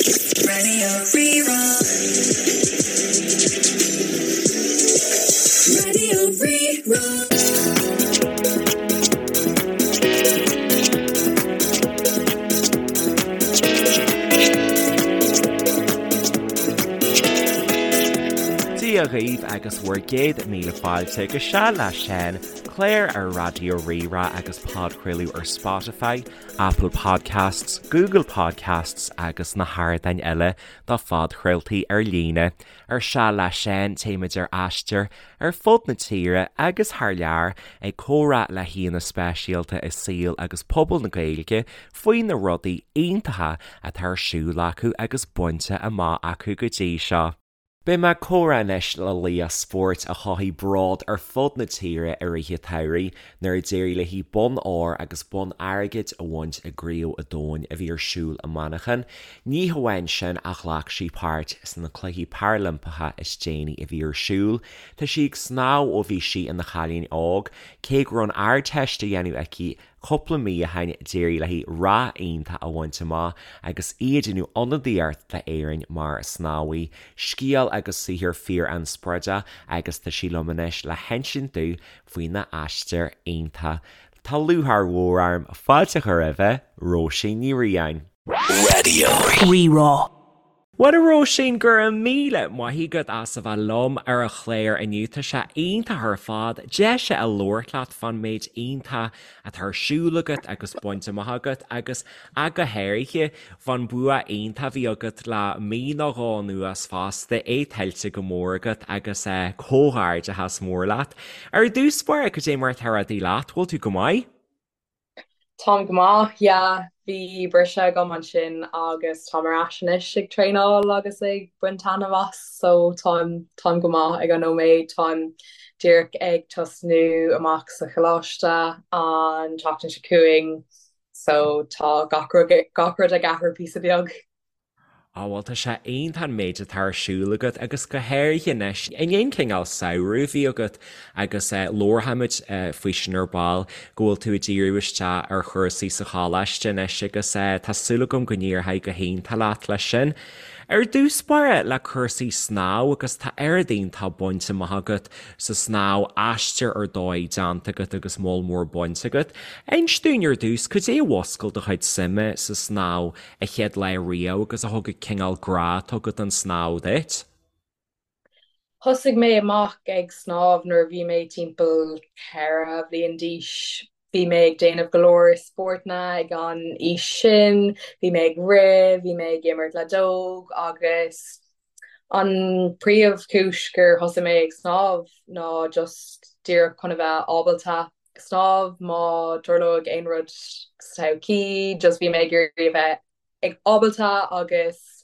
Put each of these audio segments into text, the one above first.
Radio Rí-Rá. Radio Rí-Rá. Dia dhaoibh agus bhur gcéad míle fáilte go Seal le Seán, clár ar Raidió Rí-Rá agus podchraoladh ar Spotify, Apple Podcasts, Google Podcasts agus na hardáin eile do phodchraoltaí ar líne. Ar Seal le Seán, téimid ar aistear ar fud na tíre agus thar lear ag comhrá le haíonna speisialta i saol agus pobal na Gaeilge faoi na rudaí iontacha atá ar siúl acu agus bainte amach acu go dtí seo. Beidh mé ag comhrá anois le laoch spóirt a chothaigh bród ar fud na tíre i rith an tsamhraidh nuair a d'éirigh léi bonn óir agus bonn airgid a bhaint i gCraobh an Domhain a bhí ar siúl i Manchain. Ní hamháin sin ach ghlac sí páirt sna Cluichí Parailimpeacha is déanaí a bhí ar siúl. Tá sí ag snámh ó bhí sí ina chailín óg, cé go raibh an Ardteist á dhéanamh aici Cúpla mí ó shin d'éirigh léi rath iontach a bhaint amach agus í ag déanamh ionadaíocht d'Éirinn mar snámhaí. Scéal agus saothar fíor-inspioráideach agus tá sí liom anois le hinsint domh faoina aistear iontach. Tá lúcháir mhór orm fáilte a chur roimhe, Róisín Ní Riain. Radio Rí-Rá. Bhuel a Róisín, go raibh míle maith agat as a bheith liom ar an chlár inniu. Tá sé iontach ar fad deis a labhairt leat fán méid iontach atá ar siúl agat agus bainte amach agat agus ach go háirithe fán bua iontach a bhí agat le mí nó dhó anuas fosta, é tuillte go mór agat agus comhghairdeachas mór leat. Ar dtús báire, cad é mar atá rudaí leat? Bhfuil tú go maith? Táim go maith, yeah. Bhí briseadh agam ansin agus táim ar ais anois ag traenáil agus ag baint taitneamh as, so táim, táim go maith ag an nóiméad. Táim díreach ag tosnú amach sa choláiste an tseachtain seo chugainn, so tá gach rud, gach rud ag athrú píosa beag. Á bhuel tá sé iontach an méid atá ar siúl agat agus go háirithe anois i ndiaidh an cineál samhradh a bhí agat agus labharfaimid faoi sin ar ball go bhfuil tú ag díriú isteach ar chúrsaí sa choláiste anois agus tá súil agam go n-éireoidh go hiontach leat leis sin. Ar dtús báire le cúrsaí snámh agus tá oiread iontach bainte amach agat sa snámh, aistear ar dóigh déanta agat agus moll mór bainte agat. Inis dúinn ar dtús, cad é a mhúscail do chuid suime sa snámh an chéad lá riamh agus a thug an cineál grá atá agat don snámh duit? Thosaigh mé amach ag snámh nuair a bhí mé timpeall 4 bhliain d'aois. Bhí mé ag déanamh go leor spórtanna ag an aois sin, bhí mé ag rith, bhí mé ag imirt leadóg agus an príomhchúis gur thosaigh mé ag snámh ná just díreach chun a bheith ábalta snámh má tarlóidh aon rud sa todhchaí, just bhí mé ag iarraidh a bheith ag ábalta agus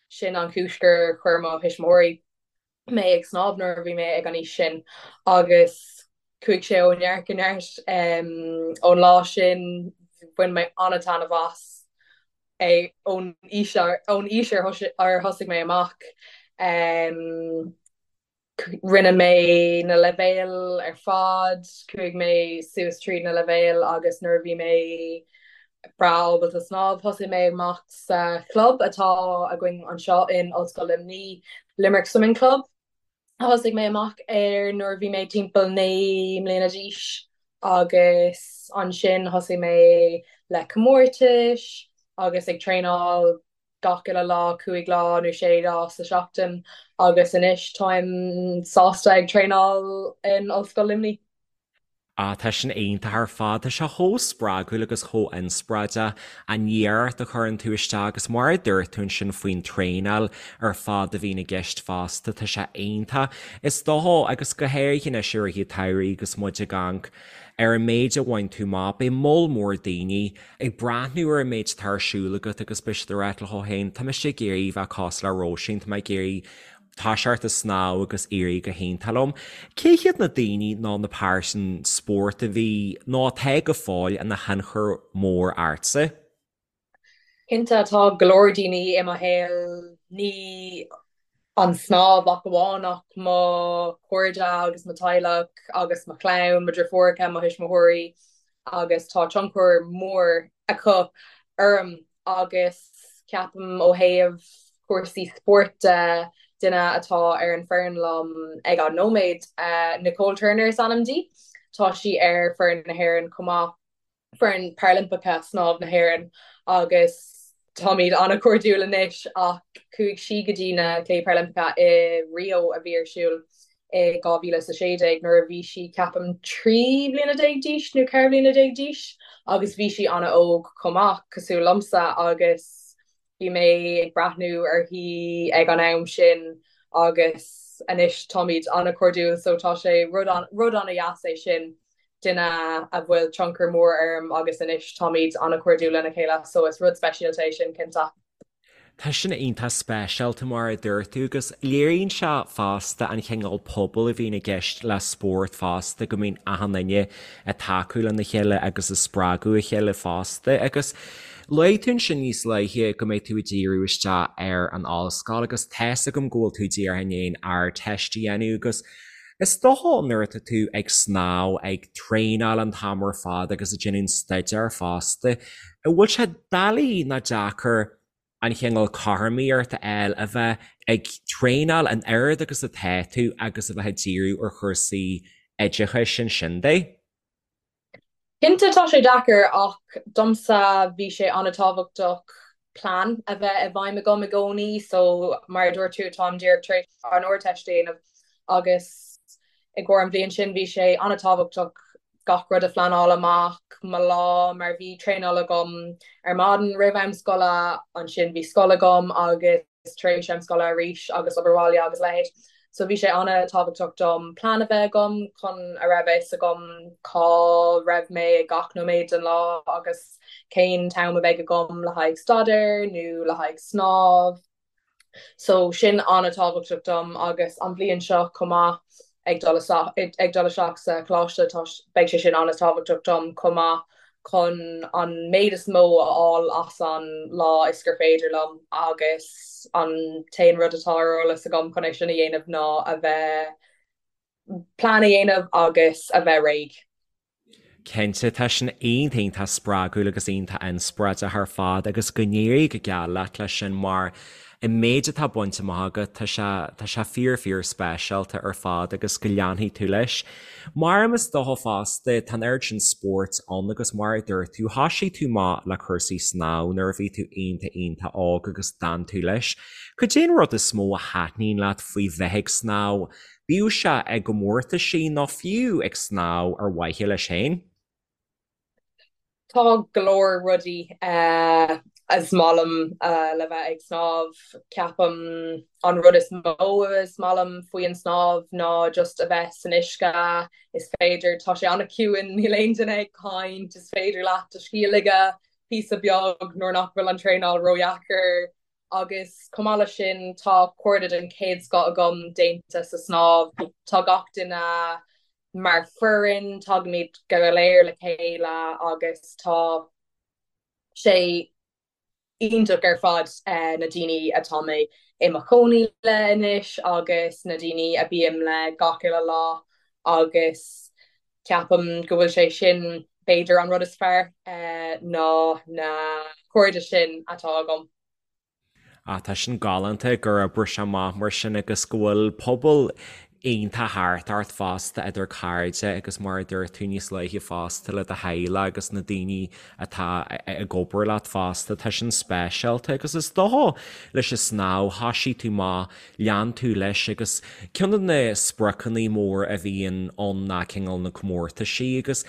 sin an chúis gur chuir mo thuismitheoirí mé ag snámh nuair a bhí mé ag an aois sin agus chuaigh sé ó neart go neart ón lá sin, bhain mé an-taitneamh as é ón aois ón aois ar thosaigh mé amach. Rinne mé na leibhéil ar fad, chuaigh mé suas tríd na leibhéil agus nuair a bhí mé breá ábalta snámh, thosaigh mé amach sa chlub atá againn anseo in Ollscoil Luimnigh, Limerick Swimming Club. Thosaigh mé amach air nuair a bhí mé timpeall 9 mbliana d'aois agus ansin thosaigh mé le comórtais agus ag traenáil gach uile lá, 5 lá nó 6 lá sa seachtain agus anois táim sásta ag traenáil in Ollscoil Luimnigh. Ah, tá sin iontach ar fad. Tá sé chomh spreagúil agus chomh inspioráideach an iarracht a chuireann tú isteach agus mar a dúirt tú ansin faoin traenáil ar fad a bhíonn i gceist fosta, tá sé iontach. Is dócha, agus go háirithe anois i rith an tsamhraidh agus muid ag amharc ar an méid a bhain tú amach, beidh moll mór daoine ag breathnú ar an méid atá ar siúl agat agus beidh siad ag rá leo féin, tá mise ag iarraidh bheith cosúil le Róisín, tá mé ag iarraidh toiseacht ag snámh agus éirí go hiontach liom. Cé hiad na daoine nó na pearsain spóirt a bhí nó atá go fóill ina thionchar mór ortsa? Cinnte, tá go leor daoine i mo shaol, ní an snámh ach amháin ach mo chairde agus mo teaghlach agus mo chlann, mo dheirfiúracha, mo thuismitheoirí agus tá tionchar mór acu orm agus. Ceapaim ó thaobh cúrsaí spóirt de, duine atá ar an foireann liom ag an nóiméad, Nicole Turner is ainm di. Tá sí ar foireann na hÉireann chomh maith, foireann Parailimpeacha snámh na hÉireann agus táimid an-chairdiúil anois ach chuaigh sí go dtí na Cluichí Parailimpeacha i Rio a bhí ar siúl i 2016 nuair a bhí sí ceapaim 13 bliana d'aois nó 14 bliana d'aois agus bhí sí an-óg chomh maith, cosúil liomsa agus bhí mé ag breathnú uirthi ag an am sin agus anois táimid an-chairdiúil so tá sé rud rud an-dheas é sin duine a bhfuil tionchar mór orm agus anois táimid an-chairdiúil lena chéile so is rud speisialta é sin cinnte. Tá sin iontach speisialta mar a dúirt tú agus léiríonn sé fosta an chineál pobail a bhíonn i gceist le spórt fosta, go mbíonn achan duine ag tacú lena chéile agus ag spreagadh a chéile fosta. Agus luaigh tú ansin níos luaithe go mbeidh tú ag díriú isteach ar an ollscoil agus tá's agam go bhfuil tú díreach i ndiaidh an Ardteist a dhéanamh agus is dócha nuair atá tú ag snámh, ag traenáil an t-am ar fad agus ag déanamh an staidéar fosta, an bhfuil sé doiligh nó deacair an chineál cothromaíocht a fháil a bheith ag traenáil an oiread agus atá tú agus a bheith ag díriú ar chúrsaí oideachais ansin de? Cinnte tá sé deacair ach domsa bhí sé an-tábhachtach plean a bheith i bhfeidhm agam i gcónaí so mar a dúirt tú táim díreach tar éis an Ardteist a dhéanamh agus i gcomhair an bhliain sin bhí sé an-tábhachtach gach rud a phleanáil amach, mo lá, mar bhí traenáil agam ar maidin roimh am scoile, ansin bhí scoil agam agus tar éis am scoile arís agus obair bhaile agus a leithéid. So bhí sé an-tábhachtach dom plean a bheith agam chun a raibh a fhios agam cá raibh mé ag gach nóiméad den lá agus cén t-am a bheidh agam le haghaidh staidéir nó le haghaidh snámh. So sin an-tábhachtach dom agus an bhliain seo chomh maith ag dul ag dul isteach sa choláiste tá beidh sé sin an-tábhachtach dom chomh maith chun an méid is mó a fháil as an lá is gur féidir liom agus an t-aon rud atá ar eolas agam chun é sin a dhéanamh ná a bheith plean a dhéanamh agus a bheith réidh. Cinnte, tá sin iontach iontach spreagúil agus iontach inspioráideach ar fad agus go n-éirí go geal leat leis sin mar an méid atá bainte amach agat, tá sé, tá sé fíor fíor speisialta ar fad agus go leanfaidh tú leis. Mar is dócha fosta, tá an oiread sin spóirt ann agus mar a dúirt tú, thoisigh tú amach le cúrsaí snámh nuair a bhí tú iontach iontach óg agus d'fhan tú leis. Cad é an rud is mó a thaitníonn leat faoi bheith ag snámh? Bíodh sé i gcomórtaisí nó fiú ag snámh ar mhaithe leis féin. Tá go leor rudaí is maith liom le bheith ag snámh. Ceapaim an rud is mó is maith liom faoi an snámh ná just a bheith san uisce. Is féidir, tá sé an-chiúin, níl aon duine ag caint, is féidir leat do scíth a ligeadh píosa beag nuair nach bhfuil an traenáil ródheacair. Agus chomh maith leis sin, tá cairde den chéad scoth agam déanta sa snámh. Tá gach duine mar foireann, tagaimid go léir le chéile agus tá sé iontach ar fad na daoine atá mé i mo chónaí le anois agus na daoine a bím le gach uile lá agus ceapaim go bhfuil sé sin b'fhéidir an rud is fearr ná na cairde sin atá agam. Ah, tá sin galánta gur oibrigh sé amach mar sin agus go bhfuil pobal iontach thart ort fosta idir cairde agus mar a dúirt tú níos luaithe fosta le do theaghlach agus na daoine atá ag obair leat fosta. Tá sin speisialta agus is dócha leis an snámh thoisigh tú amach lean tú leis agus ceann de na spriocanna mór a bhíonn ann ná cineál na comórtaisí agus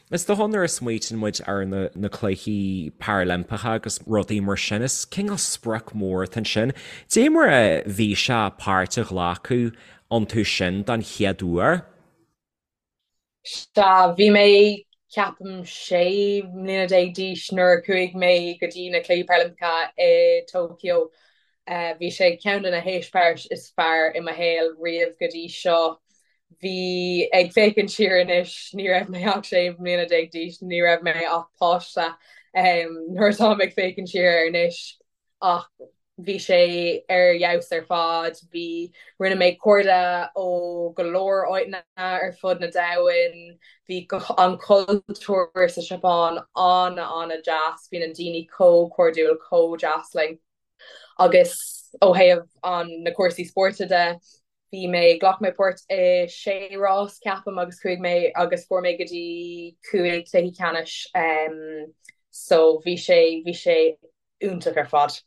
is dócha nuair a smaoitíonn muid ar na na cluichí Parailimpeacha agus rudaí mar sin is cineál sprioc mór atá ansin. Dé mar a bhí sé páirt a ghlacadh iontu sin don chéad uair? Sea, bhí mé, ceapaim, 16 mbliana d'aois nuair a chuaigh mé go dtí na Cluichí Parailimpeacha i Tokyo. Bhí sé ceann de na heispéiris is fearr i mo shaol riamh go dtí seo. Bhí, ag féachaint siar anois, ní raibh mé ach 16 mbliana d'aois, ní raibh mé ach páiste nuair atáim ag féachaint siar air anois. Ach bhí sé ar fheabhas ar fad. Bhí, rinne mé cairde ó go leor áiteanna ar fud na domhain. Bhí an cultúr sa Seapáin an-an-deas. Bhí na daoine chomh cairdiúil, chomh deas linn. Agus ó thaobh an na cúrsaí spóirt de, bhí mé, ghlac mé páirt i sé rás ceapaim agus chuaigh mé agus fuair mé go dtí chúig cluichí ceannais so bhí sé, bhí sé iontach ar fad.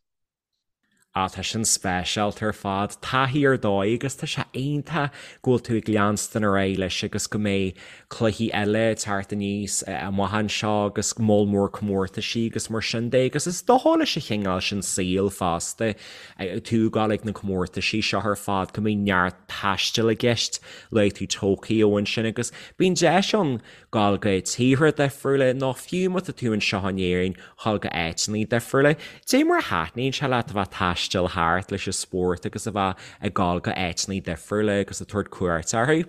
Ah, tá sin speisialta ar fad. Taithí ar dóigh agus tá sé iontach go bhfuil tú ag leanstan ar aghaidh leis agus go mbeidh cluichí eile ag teacht aníos amach anseo agus moll mór comórtaisí agus mar sin de agus is dócha leis an chineál sin saoil fosta, tú ag gabháil ag na comórtaisí seo ar fad go mbíonn neart taistil i gceist, luaigh tú Tokyo ansin agus bíonn deis ann gabháil go tíortha difriúla nó fiú má tá tú anseo in Éirinn, ghabháil go áiteanna difriúla. Dé mar a thaitníonn sé leat a bheith ag taisteal thart leis an spórt agus a bheith ag gabháil go áiteanna difriúla agus ag tabhairt cuairt orthu?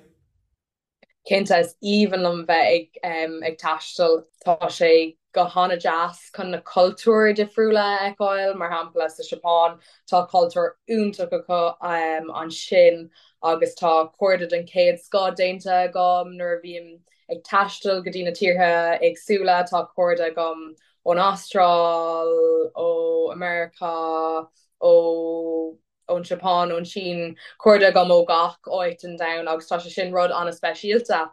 Cinnte, is aoibhinn liom bheith ag ag taisteal. Tá sé go han-deas chun na cultúir difriúla a fheiceáil, mar shampla sa Seapáin tá cultúr iontach acu ansin agus tá cairde den chéad scoth déanta agam nuair a bhím ag taisteal go dtí na tíortha éagsúla. Tá cairde agam ón Astráil, ó America, ó ón Seapáin, ón tSín, cairde agam ó gach áit den domhan agus tá sé sin rud an-speisialta.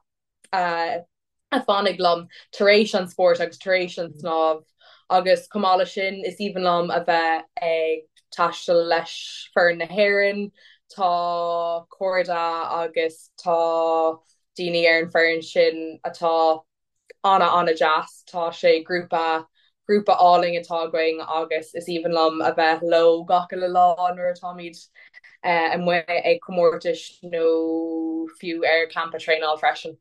A fanfaidh liom tar éis an spóirt agus tar éis an snámh agus chomh maith leis sin is aoibhinn liom a bheith ag taisteal leis foireann na hÉireann. Tá cairde agus tá daoine ar an foireann sin atá ana ana deas. Tá sé grúpa grúpa álainn atá againn agus is aoibhinn liom a bheith leo gach uile lá nuair atáimid amuigh ag comórtais nó fiú ar campa traenáil freisin.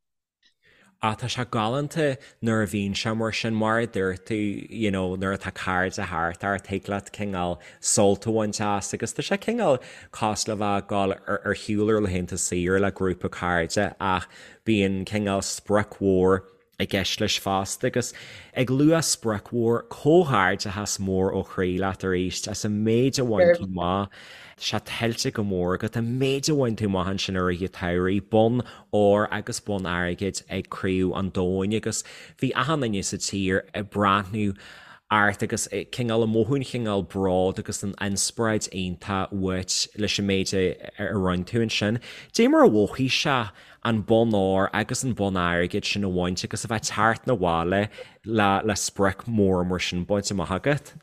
Ah tá sé galánta nuair a bhíonn sé mar sin, mar a dúirt tú, you know, nuair atá cairde thart ort, thig leat cineál sult a bhaint as agus tá sé cineál cosúil le bheith ag dul ar shiúl ar laethanta saoire le grúpa cairde ach bíonn cineál sprioc mhór i gceist leis fosta agus ag lua sprioc mhór, comhghairdeachas mór ó chroí leat arís as an méid a bhain tú amach. Tá sé tuillte go mór agat an méid a bhain tú amach ansin i rith an tsamhraidh, bonn óir agus bonn airgid ag Craobh an Domhain agus bhí achan duine sa tír ag breathnú ort agus cineál ag mothú an chineál bród agus an inspioráid iontach uait leis an méid a rinne tú ansin. Dé mar a mhothaigh sé an bonn óir agus an bonn airgid sin a bhaint agus a bheith ag teacht 'na bhaile le le sprioc mór mar sin bainte amach agat.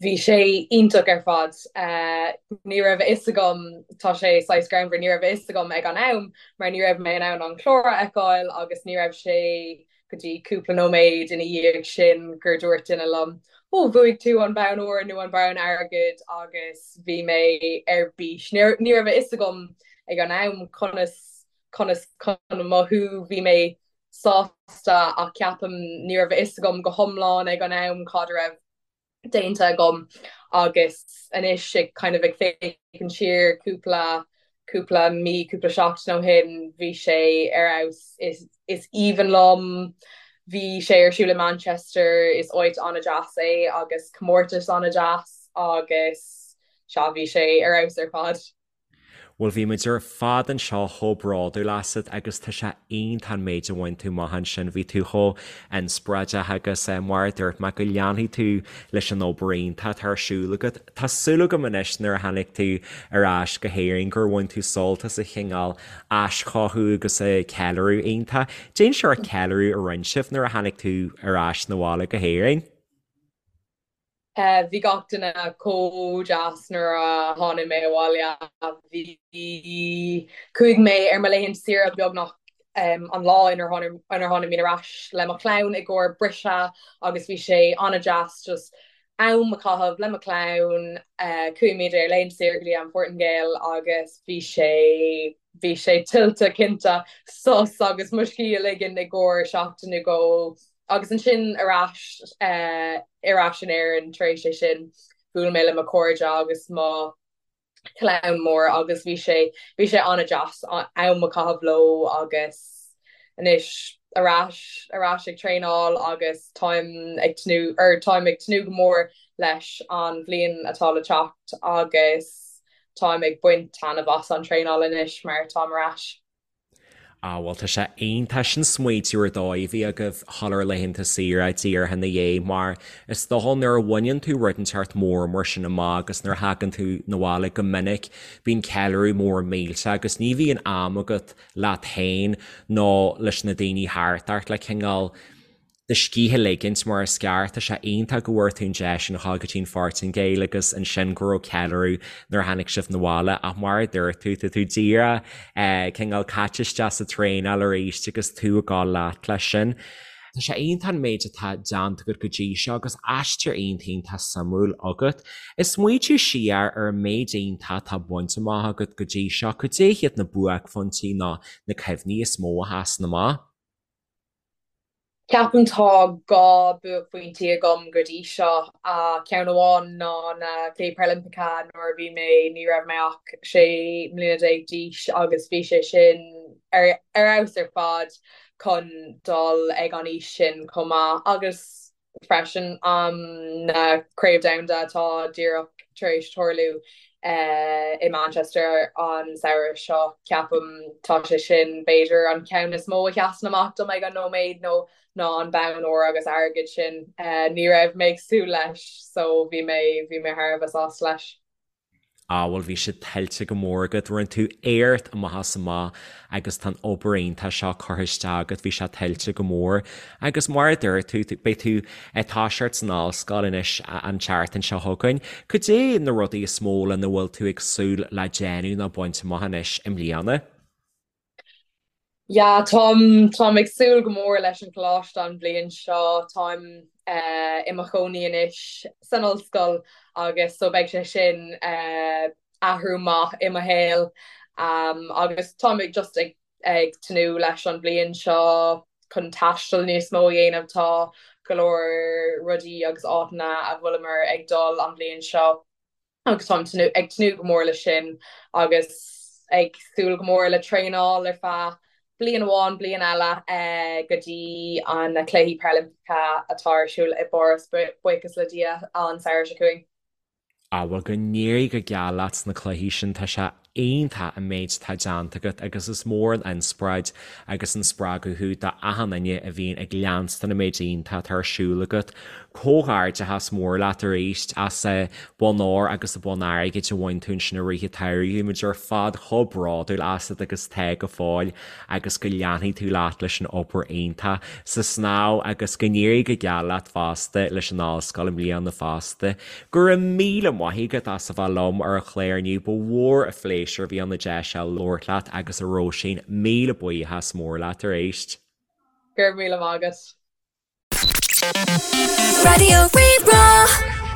Bhí sé iontach ar fad. Ní raibh a fhios agam, tá sé saghas greannmhar, ní raibh a fhios agam ag an am mar ní raibh mé in ann an clár a fheiceáil agus ní raibh sé go dtí cúpla nóiméad ina dhiaidh sin gur dúirt duine liom, 'Ó, bhuaigh tú an bonn óir nó an bonn airgid' agus bhí mé ar bís. Ní raibh a fhios agam ag an am conas conas chun mothú, bhí mé sásta ach ceapaim ní raibh a fhios agam go hiomlán ag an am cad a raibh déanta agam agus anois ag kind of ag féachaint siar cúpla cúpla mí, cúpla seachtain ó shin, bhí sé ar fheabhas. Is is aoibhinn liom. Bhí sé ar siúl i Manchester, is áit an-deas é agus comórtas an-deas agus sea, bhí sé ar fheabhas ar fad. Bhuel, bhí muid ar fad anseo chomh bródúil asat agus tá sé iontach an méid a bhain tú amach ansin. Bhí tú chomh inspioráideach agus mar a dúirt mé, go leanfaidh tú leis an obair iontach atá ar siúl agat. Tá súil agam anois nuair a tháinig tú ar ais go hÉirinn gur bhain tú sult as an chineál aischothú agus an ceiliúradh iontach. Cén sórt ceiliúradh a rinne sibh nuair a tháinig tú ar ais 'na bhaile go hÉirinn. Bhí gach duine chomh deas nuair a tháinig mé abhaile. Bhí, chuaigh mé ar mo laethanta saoire beagnach an lá inar tháinig mé ar ais le mo chlann i gcomhair briseadh agus bhí sé an-deas just am a chaitheamh le mo chlann. Chuaigh muid ar laethanta saoire go dtí an Phortaingéil agus bhí sé, bhí sé tuillte cinnte sos agus mo scíth a ligean i gcomhair seachtain nó dhó. Agus ansin ar ais, ar ais in Éirinn tar éis é sin, bhuail mé le mo chairde agus mo chlann mór agus bhí sé, bhí sé an-deas am a chaitheamh leo agus anois ar ais, ar ais ag traenáil agus táim ag tnúth, or táim ag tnúth go mór leis an bhliain atá le teacht agus táim ag baint taitneamh as an traenáil anois mar táim ar ais. Ah bhuel tá sé iontach sin smaoitiú ar dóigh a bhí agaibh dhul ar laethanta saoire díreach ina dhiaidh mar is dócha nuair a bhaineann tú rud inteacht mór mar sin amach agus nuair a thagann tú 'na bhaile go minic bíonn ceiliúradh mór millteach agus ní bhíonn am agat leat féin nó leis na daoine thart ort le cineál do scíth a ligint mar is ceart. Tá sé iontach go bhfuair tú an deis sin a dhul go dtí an Phortaingéil agus ansin go raibh ceiliúradh nuair a tháinig sibh 'na bhaile ach mar a dúirt tú, tá tú díreach cineál caite isteach sa traenáil arís agus tú ag dul leat leis sin. Tá sé iontach an méid atá déanta agat go dtí seo agus aistear iontach iontach suimiúil agat. Ag smaoitiú siar ar an méid iontach atá bainte amach agat go dtí seo, cad é hiad na buaicphointí nó na cuimhní is mó a sheasann amach? Ceapaim tá 2 buaicphointí agam go dtí seo. Ceann amháin ná na Cluichí Parailimpeacha nuair a bhí mé, ní raibh mé ach 16 mbliana d'aois agus bhí sé sin ar fheabhas ar fad chun dul ag an aois sin chomh maith agus freisin na Craobh Domhanda atá díreach tar éis tarlú i Manchester an samhradh seo. Ceapaim tá sé sin b'fhéidir an ceann is mó a sheasann amach dom ag an nóiméad nó ná an bonn óir agus airgid sin. Ní raibh mé ag súil leis so bhí mé bhí mé thar a bheith sásta leis. Á, bhuel, bhí siad tuillte go mór agat, rinne tú éacht amach is amach agus tá an obair iontach seo curtha isteach agat, bhí sé tuillte go mór. Agus mar a dúirt tú, beidh tú ag toiseacht san ollscoil anois an tseachtain seo chugainn. Cad é na rudaí is mó lena bhfuil tú ag súil le déanamh nó baint amach anois i mbliana? Yeah, táim, táim ag súil go mór leis an choláiste an bhliain seo. Táim i mo chónaí anois san ollscoil agus so beidh sé sin athrú maith i mo shaol. Agus táim ag just ag ag tnúth leis an bhliain seo chun taisteal níos mó a dhéanamh. Tá go leor rudaí agus áiteanna a bhfuileamar ag dul an bhliain seo. agus táim ag tnúth go mór leis sin agus ag súil go mór le traenáil ar feadh bliain amháin, bliain eile go dtí an na Cluichí Parailimpeacha atá ar siúl i bPáras, buíochas le Dia, an samhradh seo chugainn. Á, bhuel, go n-éirí go geal leat sna cluichí sin, tá sé iontach an méid atá déanta agat agus is mór an inspioráid agus an spreagadh thú do achan duine a bhíonn ag leanstan an méid iontach atá ar siúl agat. Comhghairdeachas mór leat arís as an bonn óir agus an bonn airgid a bhain tú ansin i rith an tsamhraidh. Bhí muid ar fad chomh bródúil asat agus tá go fóill agus go leanfaidh tú leat leis an obair iontach sa snámh agus go n-éirí go geal leat fosta leis an ollscoil i mbliana fosta. Go raibh míle maith agat as a bheith liom ar an chlár inniu, ba mhór an phléisiúr a bhí ann an deis seo labhairt leat agus a Róisín, míle buíochas mór leat arís. Go raibh míle maith agat. Raidió Rí-Rá.